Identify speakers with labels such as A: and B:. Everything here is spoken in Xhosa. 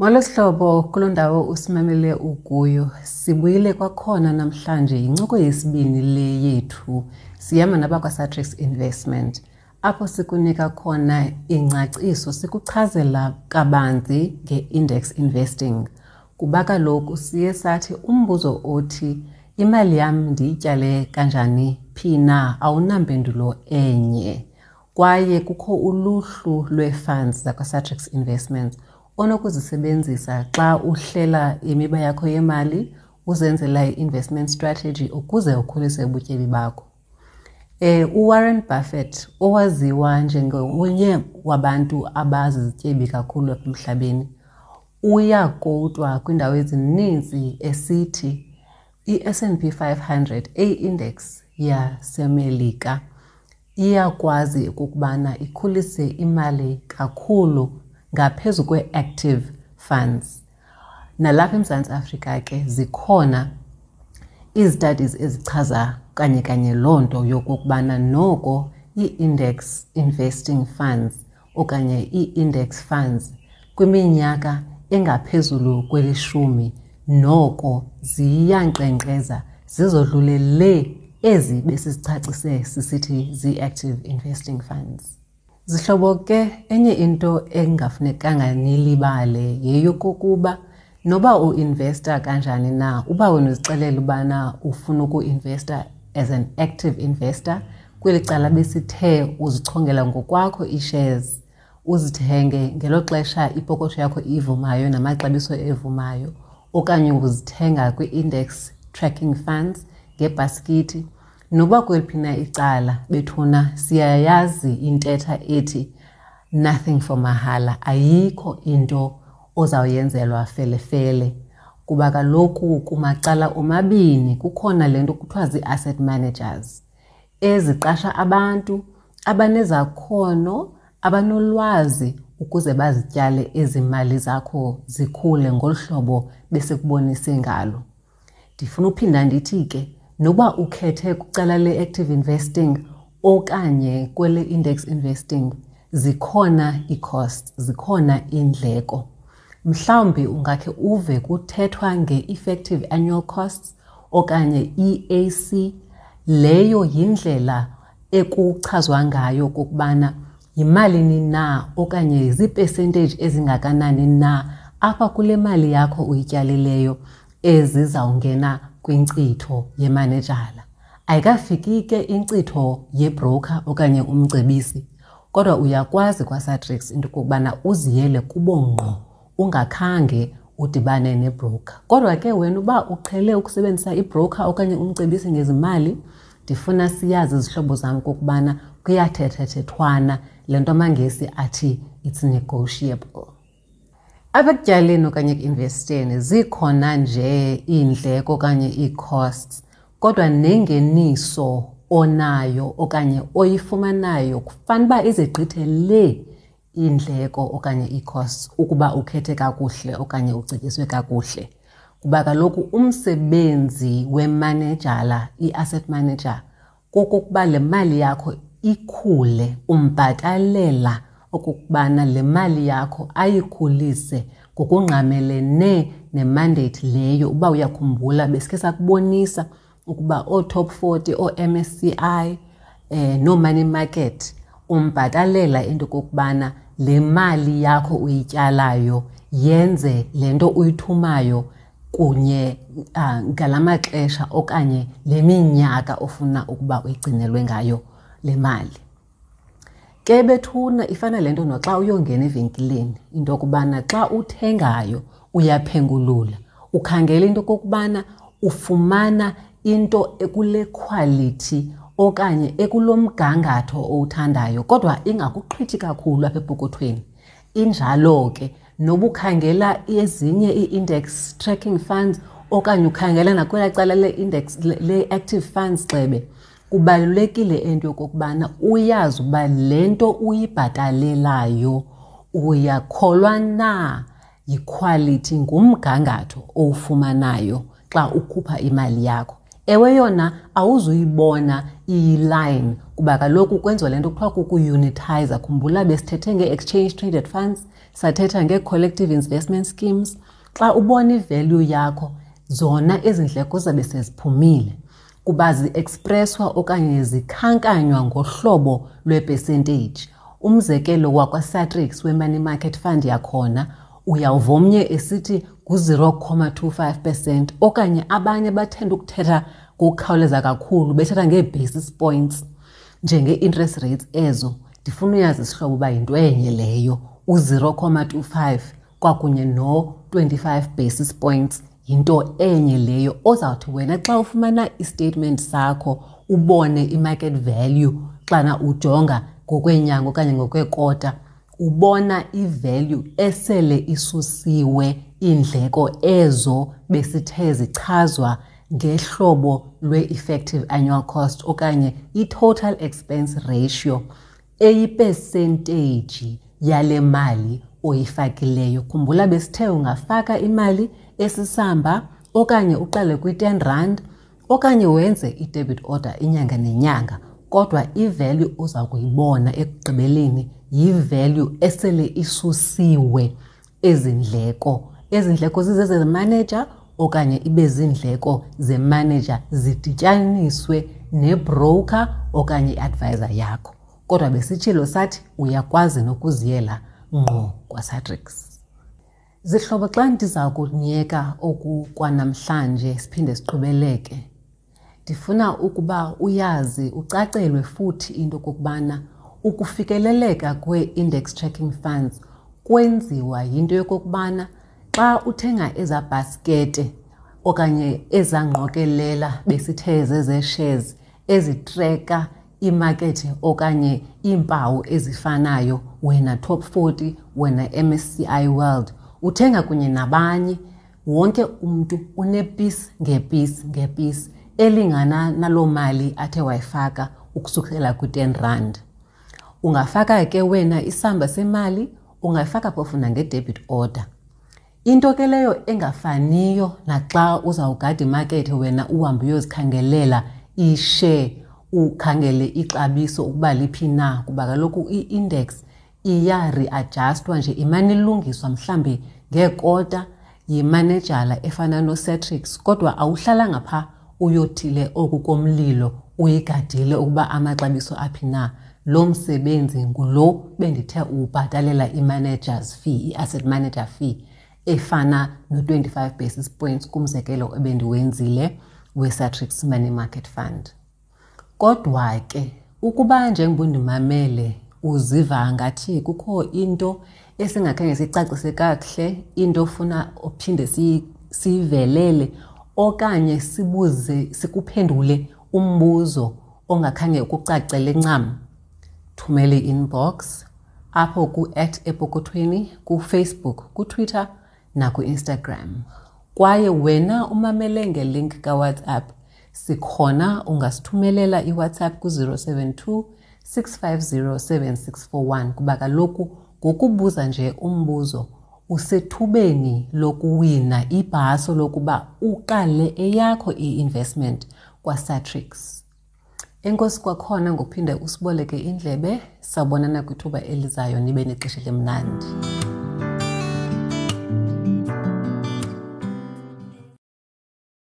A: Molo sihlobo, kuloo ndawo usimamele ukuyo. Sibuyile kwakhona namhlanje, yincoko yesibini le yethu. Sihamba nabakwaSatrix Investment, apho sikunika khona ingcaciso, sikuchazela kabanzi nge-index investing. Kuba kaloku siye sathi umbuzo othi imali yam ndiyityale kanjani phi na awunampendulo enye. Kwaye kukho uluhlu lwee-funds zakwaSatrix Investments onokuzisebenzisa xa uhlela imiba yakho yemali, uzenzela i-investment strategy ukuze ukhulise ubutyebi bakho. UWarren Buffett, owaziwa njengonye wabantu abazizityebi kakhulu apha emhlabeni, uyakowutwa kwiindawo ezininzi esithi i-S and P 500, eyi-index yaseMelika, iyakwazi ukubana ikhulise imali kakhulu ngaphezu kwe-active funds. Nalapha eMzantsi Afrika ke zikhona izi-studies ezichaza kanye kanye loo nto yokokubana noko ii-index investing funds okanye ii-index funds kwiminyaka engaphezulu kwelishumi noko ziyankqenkqeza zizodlule le ezi besizicacise sisithi zii-active investing funds. Zihlobo ke, enye into engafunekanga nilibale yeyokokuba noba uinvesta kanjani na, uba wena uzixelela ubana ufuna ukuinvesta as an active investor, kweli cala besithe uzichongela ngokwakho ii-shares, uzithenge ngelo xesha ipokotho yakho ivumayo namaxabiso evumayo, okanye uzithenga kwi-index tracking funds ngebhaskithi, noba kweliphi na icala bethuna siyayazi intetha ethi nothing for mahala, ayikho into ozawuyenzelwa felefele. Kuba kaloku kumacala omabini kukhona le nto kuthiwa zii-asset managers eziqasha abantu abanezakhono, abanolwazi ukuze bazityale ezi mali zakho zikhule ngolu hlobo besikubonise ngalo. Ndifuna uphinda ndithi ke, noba ukhethe kwicala le-active investing okanye kwele index investing, zikhona ii-costs, zikhona iindleko. Mhlawumbi ungakhe uve kuthethwa nge-effective annual costs okanye EAC. Leyo yindlela ekuchazwa ngayo okokubana yimalini na okanye zii-percentage ezingakanani na apha kule mali yakho uyityalileyo ezizawungena kwinkcitho yemanejala. Ayikafiki ke inkcitho yebroker okanye umcebisi, kodwa uyakwazi kwaSatrix into okokubana uziyele kubo ngqo ungakhange udibane nebroker. Kodwa ke wena uba uqhele ukusebenzisa ibroker okanye umcebisi ngezimali, ndifuna siyazi izihlobo zam okokubana kuyathethathethwana, le nto amaNgesi athi it's negotiable. Apha ekutyaleni okanye ekuinvesteni zikhona nje iindleko okanye ii-costs, kodwa nengeniso onayo okanye oyifumanayo kufanele uba izigqithe le iindleko okanye ii-costs ukuba ukhethe kakuhle okanye ucetyiswe kakuhle. Kuba kaloku umsebenzi wemanejala, i-asset manager, kokokuba le mali yakho ikhule, umbhatalela okokubana le mali yakho ayikhulise ngokungqamelene nemandate leyo. Uba uyakhumbula besikhe sakubonisa ukuba oo-top 40, oo-MSCI, noo-money market, umbhatalela into okokubana le mali yakho uyityalayo yenze le nto uyithumayo kunye ngala maxesha okanye le minyaka ofuna ukuba uyigcinelwe ngayo le mali. Ke bethuna ifana le nto noxa uyongena evenkileni, into yokubana xa uthengayo uyaphengulula, ukhangela into okokubana ufumana into ekule quality okanye ekulo mgangatho owuthandayo, kodwa ingakuqhithi kakhulu apha epokothweni. Injalo ke noba ukhangela ezinye ii-index tracking funds okanye ukhangela nakwelaa cala le-index le-active funds xebe, kubalulekile into yokokubana uyazi uba le nto uyibhatalelayo uyakholwa na yikhwalithi, ngumgangatho owufumanayo xa ukhupha imali yakho. Ewe yona awuzuyibona iyiline kuba kaloku kwenziwa le nto kuthiwa kukuunitiza. Khumbula besithethe ngee-exchange traded funds, sathetha ngee-collective investment schemes. Xa ubona ivalue yakho, zona ezi ndleko zabe seziphumile kuba zi-expresswa okanye zikhankanywa ngohlobo lwepercentage. Umzekelo wakwaSatrix we-money market fund yakhona, uyawuva omnye esithi ngu-0,25 percent, okanye abanye bathanda ukuthetha ngokukhawuleza kakhulu bethetha ngee-basis points njengee-interest rates ezo. Ndifuna uyazi sihlobo uba yinto enye leyo, u-0,25 kwakunye no-25 basis points yinto enye leyo. Ozawuthi wena xa ufumana istatement sakho ubone i-market value xana ujonga ngokweenyanga okanye ngokweekota, ubona ivalue esele isusiwe iindleko ezo besithe zichazwa ngehlobo lwe-effective annual cost okanye i-total expense ratio eyipesenteji yale mali oyifakileyo. Khumbula besithe ungafaka imali esisamba okanye uqale kwi-10 rand okanye wenze i-debit order inyanga nenyanga, kodwa ivalue oza kuyibona ekugqibeleni yivalue esele isusiwe ezi ndleko. Ezi ndleko zizezemanager okanye ibe ziindleko zemanager zidityaniswe nebroker okanye i-advisor yakho. Kodwa besitshilo sathi uyakwazi nokuziyela ngqo kwaSatrix. Zihlobo, xa ndiza kunyeka oku kwanamhlanje siphinde siqhubeleke, ndifuna ukuba uyazi ucacelwe futhi into okokubana ukufikeleleka kwee-index tracking funds kwenziwa yinto yokokubana xa uthenga eza bhaskete okanye eza ngqokelela besithe zezee-shares ezitreka iimakethe okanye iimpawu ezifanayo, wena Top 40, wena MSCI World, uthenga kunye nabanye, wonke umntu unepisi ngepisi ngepisi elingana naloo mali athe wayifaka ukusukela kwi-10 rand. Ungafaka ke wena isamba semali, ungayifaka phofu nange-debit order. Into ke leyo engafaniyo naxa uzawugada imakethe wena uhambe uyozikhangelela ishare, ukhangele ixabiso ukuba liphi na, kuba kaloku i-index iya-readjustwa nje, imane ilungiswa mhlambi ngeekota yimanejala efana noSatrix, kodwa awuhlalanga pha uyothile oku komlilo uyigadile ukuba amaxabiso aphi na. Lo msebenzi ngulo bendithe uwubhatalela i-managers fee, i-asset manager fee efana no-25 basis points kumzekelo ebendiwenzile we-Satrix Money Market Fund. Kodwa ke ukuba njengoba undimamele uziva ngathi kukho into esingakhange sicacise kakuhle, into ofuna uphinde siyivelele okanye sibuze sikuphendule umbuzo ongakhange ukucacele ncam, thumela i-inbox apho ku-at epokothweni kuFacebook, kuTwitter nakuInstagram. Kwaye wena umamele ngelink kaWhatsApp, sikhona, ungasithumelela iWhatsApp ku-072 650 7641, kuba kaloku ngokubuza nje umbuzo usethubeni lokuwina ibhaso lokuba uqale eyakho i-investment kwaSatrix. Enkosi kwakhona ngokuphinde usiboleke indlebe. Sawubonana kwithuba elizayo, nibe nexesha elimnandi.